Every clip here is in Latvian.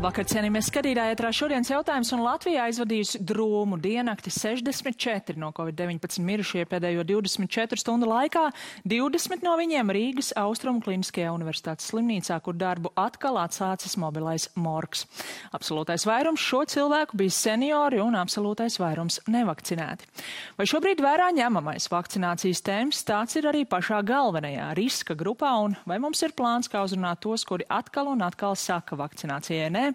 Labvakar, cienījamies skatītāji, ētrā šodienas jautājums, un Latvijā aizvadījusi drūmu diennakti 64 no Covid-19 mirušie pēdējo 24 stundu laikā, 20 no viņiem Rīgas Austrumu Kliniskajā universitātes slimnīcā, kur darbu atkal atsācis mobilais morgs. Absolūtais vairums šo cilvēku bija seniori un absolūtais vairums nevakcinēti. Vai šobrīd vērā ņemamais vakcinācijas temps, tāds ir arī pašā galvenajā riska grupā, un vai mums ir plāns, kā uzrunāt tos, kuri atkal un atkal saka vakcinācijai nē?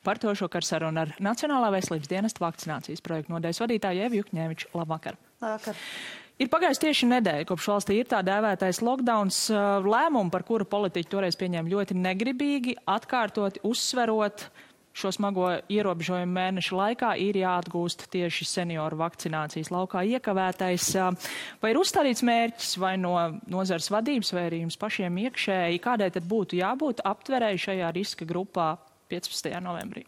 Par to šokar saruna ar Nacionālā veselības dienesta vakcinācijas projektu nodaļas vadītāju Evu Jukņēviču. Labvakar. Labvakar. Ir pagājis tieši nedēļa, kopš valstī ir tā dēvētais lockdowns, lēmumu, par kuru politiķi toreiz pieņēma ļoti negribīgi, atkārtoti uzsverot šo smago ierobežojumu mēnešu laikā, ir jāatgūst tieši senioru vakcinācijas laukā iekavētais. Vai ir uzstādīts mērķis vai no nozares vadības vai arī jums pašiem iekšēji, kādai tad būtu jābūt aptverēji šajā riska grupā 15. novembrī?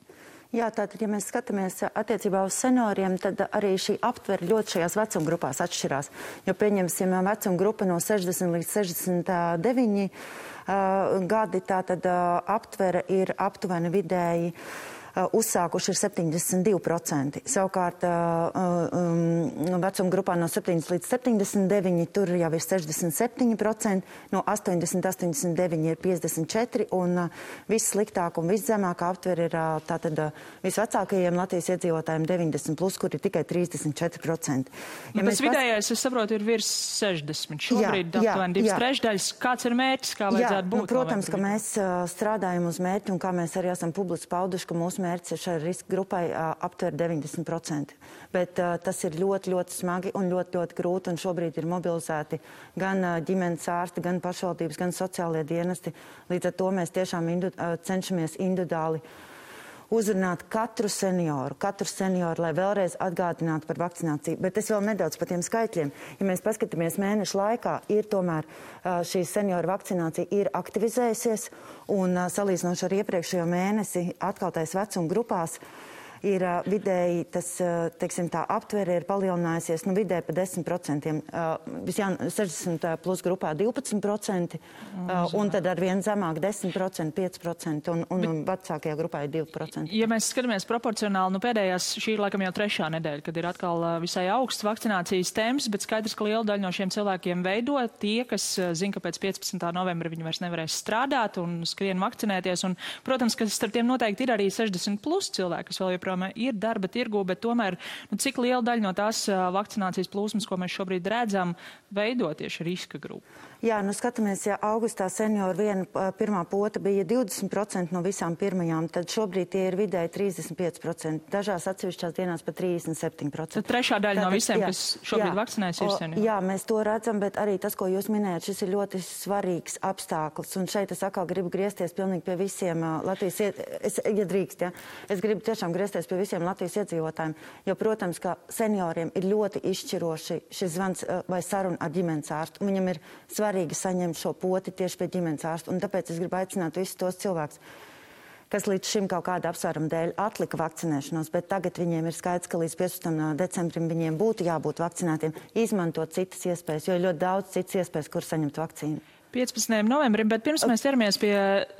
Jā, tātad, ja mēs skatāmies attiecībā uz senioriem, tad arī šī aptvere ļoti šajās vecuma grupās atšķirās. Jo pieņemsim vecuma grupa no 60 līdz 69 gadi, tātad aptvere ir aptuveni vidēji uzsākuši ir 72%. Savukārt vecuma grupā no 7 līdz 79 tur jau ir 67%, no 80-89 ir 54%, un vissliktāk un viszemākā aptvere ir tātad visvecākajiem Latvijas iedzīvotājiem 90+, kur ir tikai 34%. Ja tas vidējais, es saprotu, ir virs 60. Šobrīd aptuveni 2/3. Kāds ir mērķis, kā vajadzētu būt? Protams, ka mēs strādājam uz mērķi, un kā mēs arī esam publiski pauduši, ka mūsu mērķis ir šai riska grupai aptver 90%. Bet tas ir ļoti, ļoti smagi un ļoti, ļoti grūti, un šobrīd ir mobilizēti gan ģimenes ārsti, gan pašvaldības, gan sociālie dienesti. Līdz ar to mēs tiešām cenšamies individuāli uzrunāt katru senioru, lai vēlreiz atgādinātu par vakcināciju. Bet es vēl nedaudz par tiem skaitļiem. Ja mēs paskatāmies mēnešu laikā, ir tomēr šī senioru vakcinācija ir aktivizējusies, un salīdzinoši ar iepriekšējo mēnesi atkaltais vecuma grupās ir vidēji, tas, teiksim, tā aptvere ir palielinājusies, vidēji pa 10%. 60 plus grupā 12%, un tad ar vien zemāk 10%, 5%, un vecākajā grupā ir 2%. Ja mēs skatāmies proporcionāli, pēdējās, šī ir laikam jau 3. nedēļa, kad ir atkal visai augsts vakcinācijas temps, bet skaidrs, ka liela daļa no šiem cilvēkiem veido tie, kas zina, ka pēc 15. novembra viņi vairs nevarēs strādāt un skrien vakcinēties, un, protams, ka starp tiem noteikti ir arī 60 plus cilvēki, kas vēl joprojām ir darba tirgu, bet tomēr, cik liela daļa no tās vakcinācijas plūsmas, ko mēs šobrīd redzam, veido tieši riska grupu? Jā, skatāmies, ja augustā senioru pirmā pota bija 20% no visām pirmajām, tad šobrīd tie ir vidēji 35%, dažās atsevišķās dienās pat 37%. Tad trešā daļa no visiem, kas šobrīd vakcinējas, ir seniori? Jā, mēs to redzam, bet arī tas, ko jūs minējat, šis ir ļoti svarīgs apstākļus, un šeit es atkal gribu griezties pilnīgi pie visiem Latvijas, ja drīkst, ja? Es gribu tiešām griezties pie visiem Latvijas iedzīvotājiem, jo, protams, ka senioriem ir ļoti izšķiroši šis zvans vai saruna ar ģimenes ārstu. Viņam ir svarīgi saņemt šo poti tieši pie ģimenes ārsta, un tāpēc es gribu aicināt visus tos cilvēkus, kas līdz šim kaut kāda apsvēruma dēļ atlika vakcinēšanos, bet tagad viņiem ir skaidrs, ka līdz 15. decembrim viņiem būtu jābūt vakcinētiem, izmantot citas iespējas, jo ir ļoti daudz citas iespējas, kur saņemt vakcīnu. 15. novembrim, bet pirms mēs ķeramies pie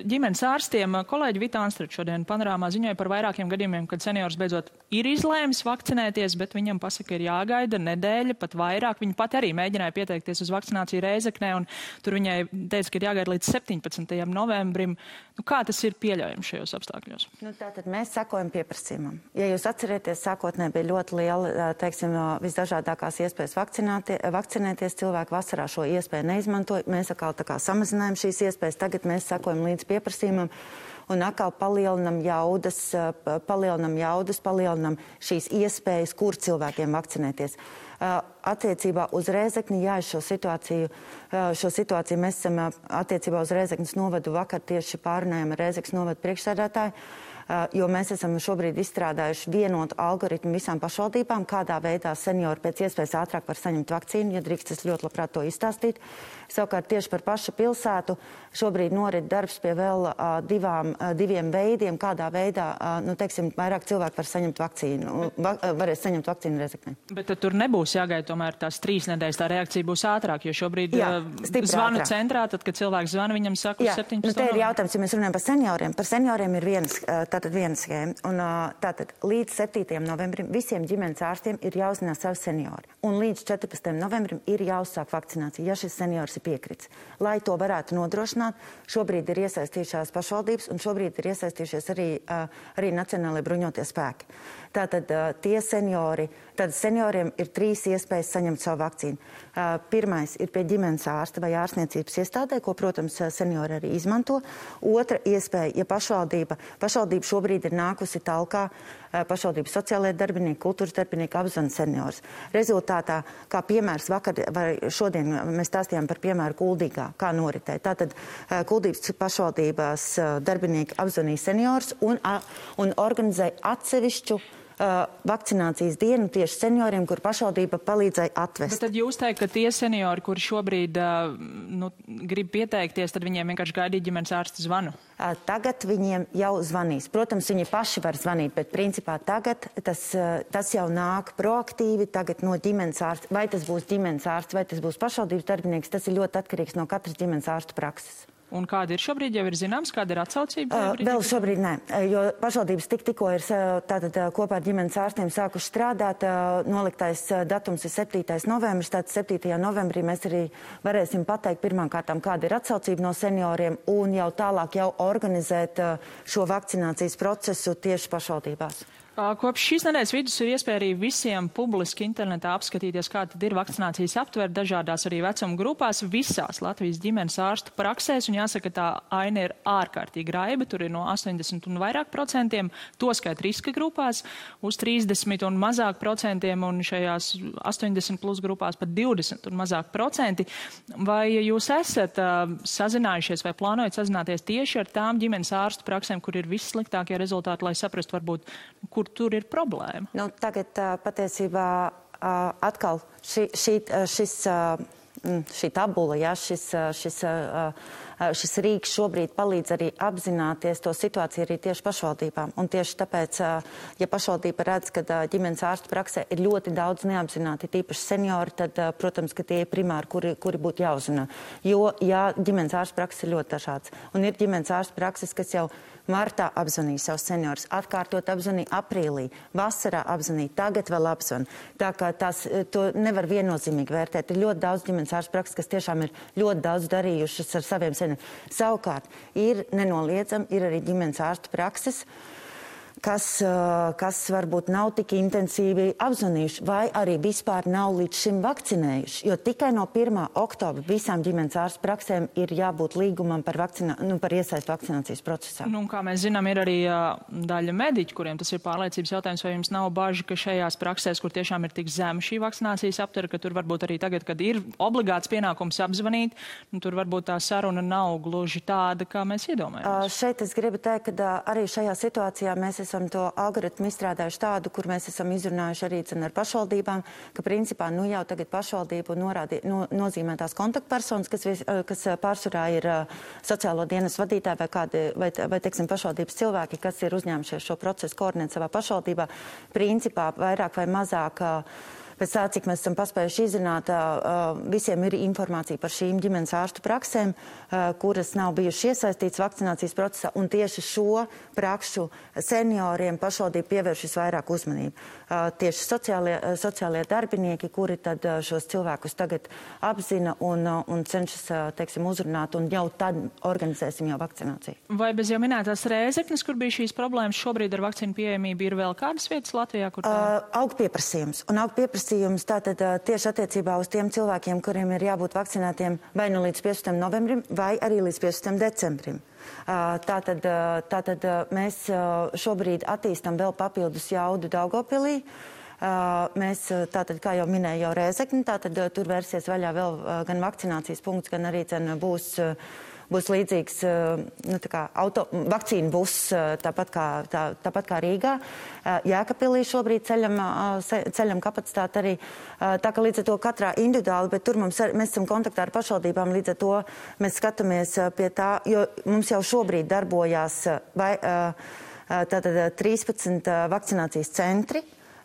ģimenes ārstiem, kolēģi Vita Anstrate šodien panorāmā ziņoja par vairākiem gadījumiem, kad seniors beidzot ir izlēmis vakcinēties, bet viņam pasaka, ir jāgaida nedēļa, pat vairāk. Viņa pat arī mēģināja pieteikties uz vakcināciju Rēzeknē, un tur viņai teica, ka ir jāgaida līdz 17. novembrim. Kā tas ir pieļaujams šajos apstākļos? Tātad mēs sekojam pieprasījumam. Ja jūs atcerieties, sākotnē bija ļoti liela, teiksim, visdažādākās iespējas vakcinēties. Cilvēki vasarā šo iespēju neizmantoja. Mēs atkal tā kā samazinājām šīs iespējas, tagad mēs sekojam līdz pieprasījumam un atkal palielinam šīs iespējas, kur cilvēkiem vakcinēties. Attiecībā uz Rēzekni, jā, šo situāciju mēs esam attiecībā uz Rēzeknes novadu vakar tieši pārunājam ar Rēzeknes novadu priekšsēdētāju, jo mēs esam šobrīd izstrādājuši vienotu algoritmu visām pašvaldībām, kādā veidā seniori pēc iespējas ātrāk var saņemt vakcīnu, ja drīkst, es ļoti labprāt to izstāstīt. Savukārt tieši par pašu pilsētu šobrīd norit darbs pie vēl diviem veidiem, kādā veidā, vairāk cilvēku var saņemt vakcīnu, varēs saņemt vakcīnu Rēzeknē. Bet tur nebūs jāgaida tomēr tās 3 nedēļas, tā reakcija būs ātrāk, jo šobrīd zvanu centrā, tad, kad cilvēks zvana, viņam saka uz 17. Te ir jautājums, ja mēs runājam par senioriem ir vienas tātad viena schēma. Un tātad līdz 7. novembrim visiem ģimenes ārstiem ir jāuzzinās savi seniori. Un līdz 14. novembrim ir jāuzsāk vakcinācija, ja šis seniors ir piekrits. Lai to varētu nodrošināt, šobrīd ir iesaistījušās pašvaldības un šobrīd ir iesaistījušies arī Nacionālajie bruņotie spēki. Tātad senioriem ir 3 iespējas saņemt savu vakcīnu. Pirmais ir pie ģimenes ārsta vai ārstniecības iestādē, ko, protams, seniori arī izmanto. Otra iespēja, ja pašvaldība šobrīd ir nākusi talkā, pašvaldības sociālajie darbinieki, kultūras darbinieki apzvan seniors. Rezultātā, kā piemērs vakar vai šodien mēs stāstījām par piemēru Kuldīgā, kā noritēja. Tātad Kuldības pašvaldības darbinieki apzvanīja seniors un organizēja atsevišķu vakcinācijas dienu tieši senioriem, kur pašvaldība palīdzēja atvest. Bet tad jūs teikt, ka tie seniori, kuri šobrīd grib pieteikties, tad viņiem vienkārši gaidīja ģimenes ārsta zvanu? Tagad viņiem jau zvanīs. Protams, viņi paši var zvanīt, bet principā tagad tas jau nāk proaktīvi, tagad no ģimenes ārsta. Vai tas būs ģimenes ārsts, vai tas būs pašvaldības darbinieks, tas ir ļoti atkarīgs no katras ģimenes ārsta prakses. Un kāda ir šobrīd, jau ir zināms, kāda ir atsaucība? Vēl šobrīd nē, jo pašvaldības tikko ir tātad kopā ar ģimenes ārstiem sākuši strādāt. Noliktais datums ir 7. novembris, tātad 7. novembrī mēs arī varēsim pateikt pirmkārtām, kāda ir atsaucība no senioriem un jau tālāk jau organizēt šo vakcinācijas procesu tieši pašvaldībās. Kopš šīs nedēļas vidus ir iespēja arī visiem publiski internetā apskatīties, kā tad ir vakcinācijas aptver dažādās arī vecuma grupās visās Latvijas ģimenes ārstu praksēs, un jāsaka, tā aina ir ārkārtīgi raiba, tur ir no 80 un vairāk procentiem, to skait riska grupās, uz 30 un mazāk procentiem, un šajās 80 plus grupās pat 20 un mazāk procenti. Vai jūs esat sazinājušies vai plānojat sazināties tieši ar tām ģimenes ārstu praksēm, kur ir vissliktākie rezultāti, lai saprastu varbūt, kur tur ir problēma? Tagad patiesībā atkal šī tabula, ja, šis rīks šobrīd palīdz arī apzināties to situāciju arī tieši pašvaldībām. Un tieši tāpēc, ja pašvaldība redz, ka ģimenes ārstu praksē ir ļoti daudz neapzināti, tīpaši seniori, tad, protams, ka tie ir primāri, kuri būtu jāuzrunā. Jo, ja ģimenes ārstu prakses ir ļoti dažāds. Un ir ģimenes ārstu prakses, kas jau martā apzvanīja savus seniorus, atkārtot apzvanīja aprīlī, vasarā apzvanīja, tagad vēl apzvan. Tā kā to nevar viennozīmīgi vērtēt. Ir ļoti daudz ģimenes ārstu prakses, kas tiešām ir ļoti daudz darījušas ar saviem senioriem. Savukārt, ir nenoliedzami, ir arī ģimenes ārstu prakses, kas varbūt nav tik intensīvi apzvanījuši vai arī vispār nav līdz šim vakcinējuši. Jo tikai no 1. oktobra visām ģimenes ārstu praksēm ir jābūt līgumam par iesaistu vakcinācijas procesā. Un kā mēs zinām, ir arī daļa mediķi, kuriem tas ir pārliecības jautājums, vai jums nav baži, ka šajās praksēs, kur tiešām ir tik zema šī vakcinācijas aptver, ka tur varbūt arī tagad, kad ir obligāts pienākums apzvanīt, tur varbūt tā saruna nav gluži tāda, kā mēs iedomājamies. Šeit es gribu teikt, ka arī šajā situācijā mēs esam to algoritmu izstrādājuši tādu, kur mēs esam izrunājuši arī ar pašvaldībām, ka principā jau tagad pašvaldību nozīmētās kontaktpersonas, kas pārsvarā ir sociālo dienas vadītāji vai teiksim, pašvaldības cilvēki, kas ir uzņēmušies šo procesu koordinēt savā pašvaldībā, principā vairāk vai mazāk. Pēc tā, cik mēs esam paspējuši izzināt, visiem ir informācija par šīm ģimenes ārstu praksēm, kuras nav bijušas iesaistītas vakcinācijas procesā, un tieši šo prakšu senioriem pašvaldība pievērš visvairāk uzmanību. Tieši sociālie darbinieki, kuri tad šos cilvēkus tagad apzina un cenšas, teiksim, uzrunāt, un jau tad organizēsim jau vakcināciju. Vai bez jau minētās Rēzeknes, kur bija šīs problēmas, šobrīd ar vakcīnu pieejamību ir vēl kādas vietas Latvijā, kur tā? Aug pieprasījums. Un aug pieprasījums tātad tieši attiecībā uz tiem cilvēkiem, kuriem ir jābūt vakcinētiem vai nu līdz 15. novembrim, vai arī līdz 15. decembrim. Tātad mēs šobrīd attīstam vēl papildus jaudu Daugavpilī. Mēs, tātad, kā jau minēju, jau Rēzekni, tātad tur vērsies vaļā vēl gan vakcinācijas punkts, gan arī būs līdzīgs vakcīnu buss, tāpat kā Rīgā. Jēkabpilī šobrīd ceļam kapacitāti arī. Tā kā līdz ar to katrā individuāli, bet tur mēs esam kontaktā ar pašvaldībām, līdz ar to mēs skatāmies pie tā, jo mums jau šobrīd darbojās 13 vakcinācijas centri.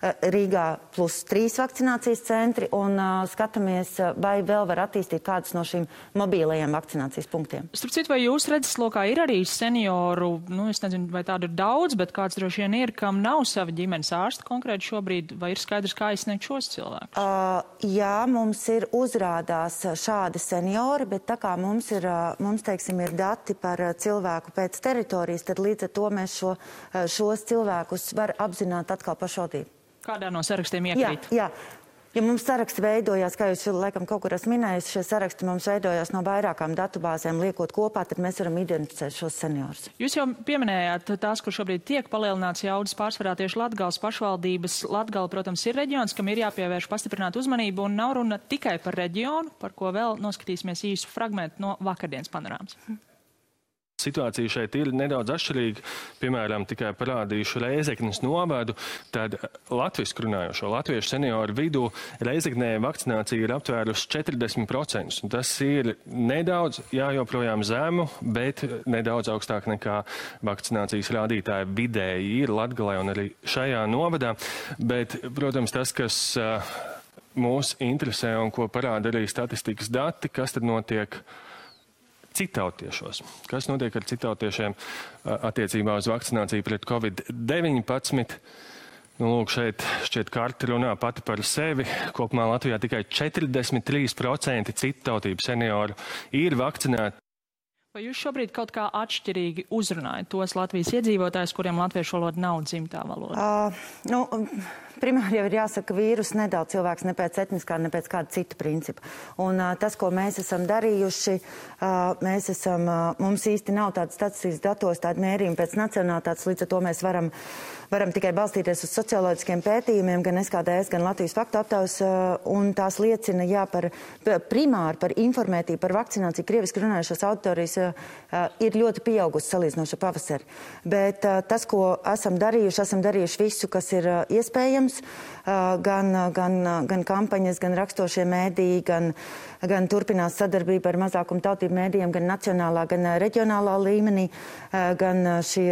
Rīgā plus 3 vakcinācijas centri un skatāmies, vai vēl var attīstīt kādus no šīm mobīlajiem vakcinācijas punktiem. Starp citu, vai jūs redzeslokā ir arī senioru, es nezinu, vai tādu ir daudz, bet kāds droši vien ir, kam nav sava ģimenes ārsta konkrēti šobrīd, vai ir skaidrs, kā aizsniegt šos cilvēkus? Jā, mums ir uzrādās šādi seniori, bet tā kā mums teiksim, ir dati par cilvēku pēc teritorijas, tad līdz ar to mēs šos cilvēkus var apzināt atkal pašvaldību. Kādā no sarakstiem iekrīt? Jā. Ja mums saraksti veidojās, kā jūs laikam kaut kur esat minējusi, šie saraksti mums veidojās no vairākām datubāzēm, liekot kopā, tad mēs varam identificēt šos seniorus. Jūs jau pieminējāt tās, kur šobrīd tiek palielināts jaudas pārsvarā tieši Latgales pašvaldības. Latgale, protams, ir reģions, kam ir jāpievērš pastiprināt uzmanību, un nav runa tikai par reģionu, par ko vēl noskatīsimies īsu fragmentu no vakardienas panorāmas. Situācija šeit ir nedaudz atšķirīga. Piemēram, tikai parādīšu Rēzeknes novadu, tad latvisku runājošo latviešu senioru vidū Rēzeknē vakcinācija ir aptvērusi 40%. Un tas ir nedaudz, joprojām zemu, bet nedaudz augstāk nekā vakcinācijas rādītāji vidēji ir Latgalē un arī šajā novadā. Bet, protams, tas, kas mūs interesē un ko parāda arī statistikas dati, kas tad notiek citautiešos. Kas notiek ar citautiešiem attiecībā uz vakcināciju pret Covid-19? Lūk, šeit šķiet karte runā pati par sevi. Kopumā Latvijā tikai 43% citautību senioru ir vakcinēti. Vai jūs šobrīd kaut kā atšķirīgi uzrunājat tos Latvijas iedzīvotājus, kuriem latviešu valoda nav dzimtā valoda? Primāri jau ir jāsaka, ka vīrus nedala cilvēks ne pēc etniskā, ne pēc kāda cita principa. Un tas, ko mēs esam darījuši, mums īsti nav tādas statistikas datos, tāda mērījuma pēc nacionālitātes, līdz ar to mēs varam tikai balstīties uz socioloģiskiem pētījumiem, gan SKDS, gan Latvijas faktu aptaujas, un tās liecina, primāri par informētību, par vakcināciju krieviski runājušās auditorijas ir ļoti pieaugusi salīdzinoši ar pavasari. Bet tas, ko esam darījuši visu, kas ir iespējams, gan kampaņas, gan rakstošie mēdīji, gan turpinās sadarbība ar mazākumu tautību mēdījiem, gan nacionālā, gan reģionālā līmenī, gan šie,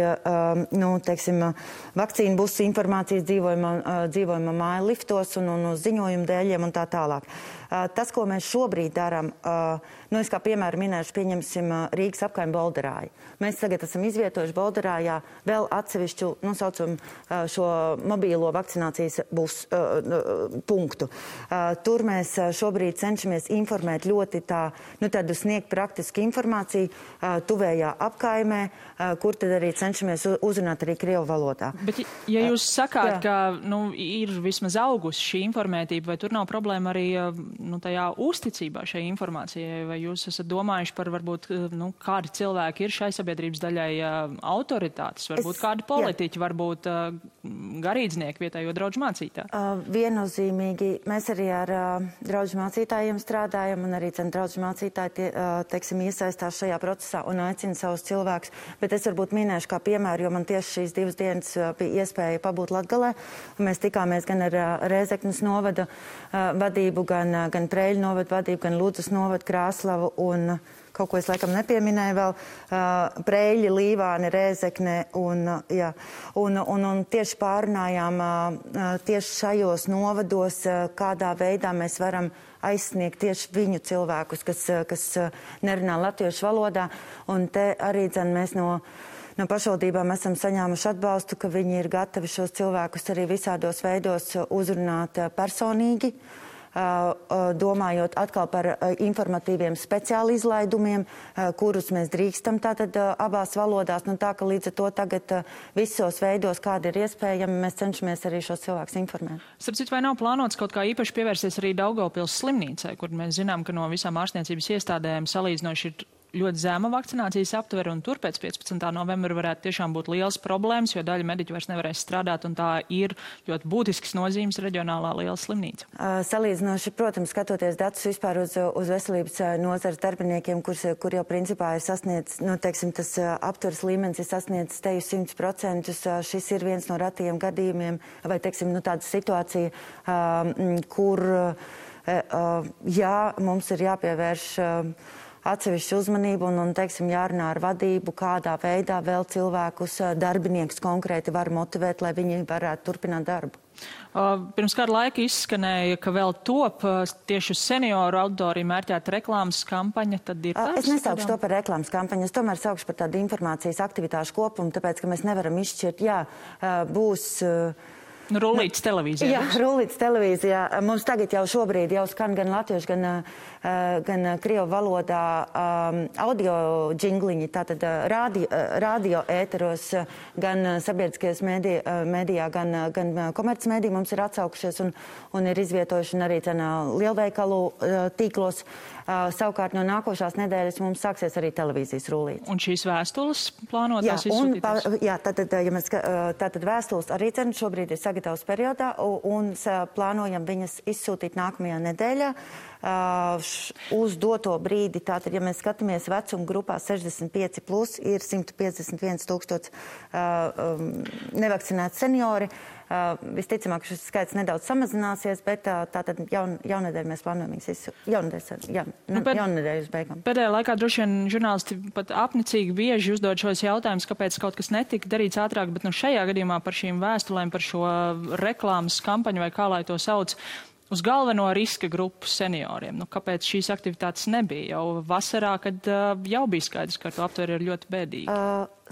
vakcīnu busu informācijas dzīvojuma māju liftos un uz ziņojumu dēļiem un tā tālāk. Tas, ko mēs šobrīd darām, es kā piemēru minēšu, pieņemsim Rīgas apkaimi Bolderāju. Mēs tagad esam izvietojuši Bolderājā vēl atsevišķu, saucam, šo mobīlo vakcinācijas punktu. Tur mēs šobrīd cenšamies informēt ļoti tādu sniegt praktisku informāciju tuvējā apkaimē, kur tad arī cenšamies uzrunāt arī krievu valodā. Bet, ja jūs sakāt, ka ir vismaz augusi šī informētība, vai tur nav problēma arī tajā uzticībā šai informācijai, vai jūs esat domājuši par varbūt, kādi cilvēki ir šai sabiedrības daļai autoritātes, varbūt kādi politiķi, varbūt garīdznieki vietējo draudžu mācītāji? Viennozīmīgi mēs arī ar draudžu mācītājiem strādājam, un arī draudžu mācītāji, iesaistās šajā procesā un aicina savus cilvēkus. Bet es varbūt minēšu kā piemēru, jo man tieši šīs 2 dienas bija iespēja pabūt Latgalē. Mēs tikāmies gan ar Rēzeknes novada vadību, gan Preļu novada vadību, gan Ludzas novada Krāslavu un kaut ko es laikam nepieminēju vēl, Preļi, Līvāni, Rēzekne un tieši pārunājām tieši šajos novados, kādā veidā mēs varam aizsniegt tieši viņu cilvēkus, kas nerunā latviešu valodā. Un te arī mēs no pašvaldībām esam saņēmuši atbalstu, ka viņi ir gatavi šos cilvēkus arī visādos veidos uzrunāt personīgi, domājot atkal par informatīviem speciāli izlaidumiem, kurus mēs drīkstam tātad abās valodās. Tā, ka līdz ar to tagad visos veidos, kādi ir iespējami, mēs cenšamies arī šos cilvēkus informēt. Starp citu, vai nav plānots kaut kā īpaši pievērsties arī Daugavpils slimnīcai, kur mēs zinām, ka no visām ārstniecības iestādēm salīdzinoši ir ļoti zema vakcinācijas aptvere, un tur pēc 15. novembra varētu tiešām būt liels problēmas, jo daļa mediķu vairs nevarēs strādāt, un tā ir ļoti būtisks nozīmes reģionālā liela slimnīca. Salīdzinoši, protams, skatoties datus vispār uz veselības nozares darbiniekiem, kur jau principā ir sasniedz, tas aptveres līmenis ir sasniedzis teju 100%, šis ir viens no ratajiem gadījumiem, vai, tāda situācija, kur, mums ir jāpievērš atsevišķu uzmanību un teiksim, jārunā ar vadību, kādā veidā vēl cilvēkus, darbiniekus konkrēti var motivēt, lai viņi varētu turpināt darbu. Pirms kāda laika izskanēja, ka vēl top tieši uz senioru auditoriju mērķēta reklāmas kampaņa. Tad ir es nesaukšu to par reklāmas kampaņu, es tomēr saukšu par tādu informācijas aktivitāšu kopumu, tāpēc, ka mēs nevaram izšķirt, būs... Rullītes televīzijā. Jā, rullītes televīzijā. Mums tagad jau šobrīd jau skan gan latviešu, gan krievu valodā audio džingliņi, tātad radio ēteros, gan sabiedriskajos mēdījā, gan komercmēdī mums ir atsaukušies un ir izvietojuši arī lielveikalu tīklos. Savukārt no nākošās nedēļas mums sāksies arī televīzijas rullītes. Un šīs vēstules plānotās izsūtītas? Jā, tātad vēstules arī šobrīd ir sagatavas periodā un plānojam viņas izsūtīt nākamajā nedēļā. Uz doto brīdi, tātad, ja mēs skatāmies vecuma grupā 65 plus, ir 151 000 nevakcinēti seniori. Visticamāk, šis skaits nedaudz samazināsies, bet tātad jaunedēļ mēs plānojam jaunedēļ uz beigām. Pēdējā laikā droši vien žurnālisti pat apnicīgi bieži uzdod šos jautājumus, kāpēc kaut kas netika darīts ātrāk, bet šajā gadījumā par šīm vēstulēm, par šo reklāmas kampaņu vai kā lai to sauc, uz galveno riska grupu senioriem. Kāpēc šīs aktivitātes nebija? Jau vasarā, kad jau bija skaidrs, ka to aptver ir ļoti bēdīgi.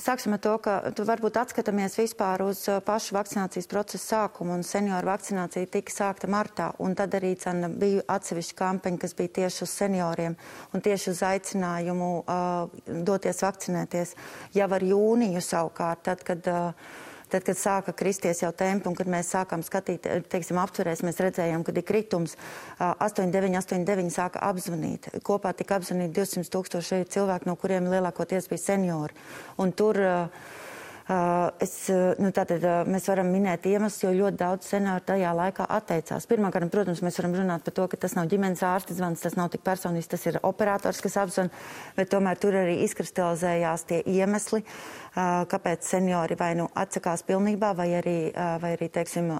Sāksim ar to, ka tu varbūt atskatāmies vispār uz pašu vakcinācijas procesu sākumu, un senioru vakcinācija tika sākta martā, un tad arī bija atsevišķa kampaņa, kas bija tieši uz senioriem un tieši uz aicinājumu doties vakcinēties. Jau ar jūniju savukārt, tad, kad sāka kristies jau tempi un kad mēs sākām skatīt, teiksim, aptverēs, mēs redzējām, kad ir kritums, 89 sāka apzvanīt. Kopā tika apzvanīt 200 000 cilvēku, no kuriem lielākoties bija seniori. Un tur mēs varam minēt iemeslus, jo ļoti daudz senioru tajā laikā atteicās. Pirmkārt, protams, mēs varam runāt par to, ka tas nav ģimenes ārsta zvans, tas nav tik personisks, tas ir operators, kas apzvan, bet tomēr tur arī izkristalizējās tie iemesli, kāpēc seniori vai nu atsakās pilnībā, vai arī teiksim,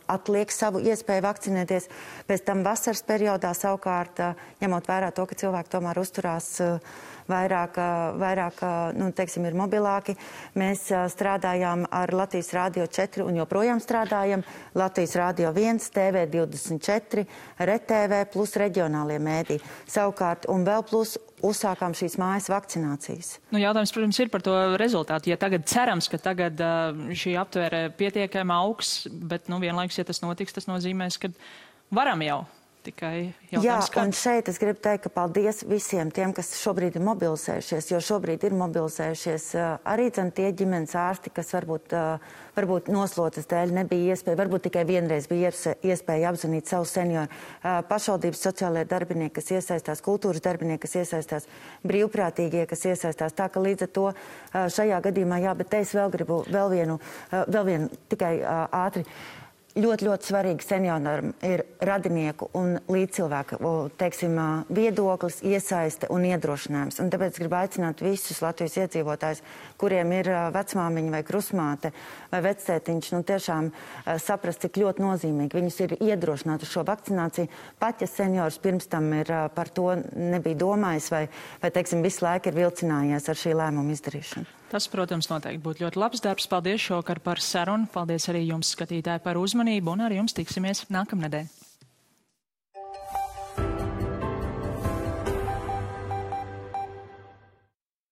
atliek savu iespēju vakcinēties. Pēc tam vasaras periodā savukārt, ņemot vērā to, ka cilvēki tomēr uzturās vairāk teiksim, ir mobilāki. Mēs strādājām ar Latvijas Rādio 4 un joprojām strādājam. Latvijas Rādio 1, TV24, RTV plus reģionālie mēdī. Savukārt, un vēl plus uzsākām šīs mājas vakcinācijas. Jautājums, protams, ir par to rezultātu. Ja tagad cerams, ka tagad šī aptvere pietiekami augs, bet vienlaikus, ja tas notiks, tas nozīmēs, ka varam jau. Jā, un šeit es gribu teikt, ka paldies visiem tiem, kas šobrīd ir mobilizējušies, jo šobrīd ir mobilizējušies arī tie ģimenes ārsti, kas varbūt noslotas dēļ nebija iespēja, varbūt tikai vienreiz bija iespēja apzvanīt savu senioru. Pašvaldības sociālajie darbinieki, kas iesaistās, kultūras darbinieki, kas iesaistās, brīvprātīgie, kas iesaistās. Tā ka līdz ar to šajā gadījumā, bet te es vēl gribu vēl vienu tikai ātri. Ļoti, ļoti svarīgi senioram ir radinieku un līdzcilvēku, teiksim, viedoklis, iesaiste un iedrošinājums. Un tāpēc gribu aicināt visus Latvijas iedzīvotājus, kuriem ir vecmāmiņa vai krusmāte vai vectētiņš, tiešām saprast, cik ļoti nozīmīgi viņus ir iedrošināt uz šo vakcināciju. Pat, ja seniors pirms tam ir par to nebija domājis vai teiksim, visu laiku ir vilcinājies ar šī lēmuma izdarīšanu. Tas, protams, noteikti būtu ļoti labs darbs. Paldies šovakar par sarunu. Paldies arī jums, skatītāji, par uzmanību, un ar jums tiksimies nākamnedēļ.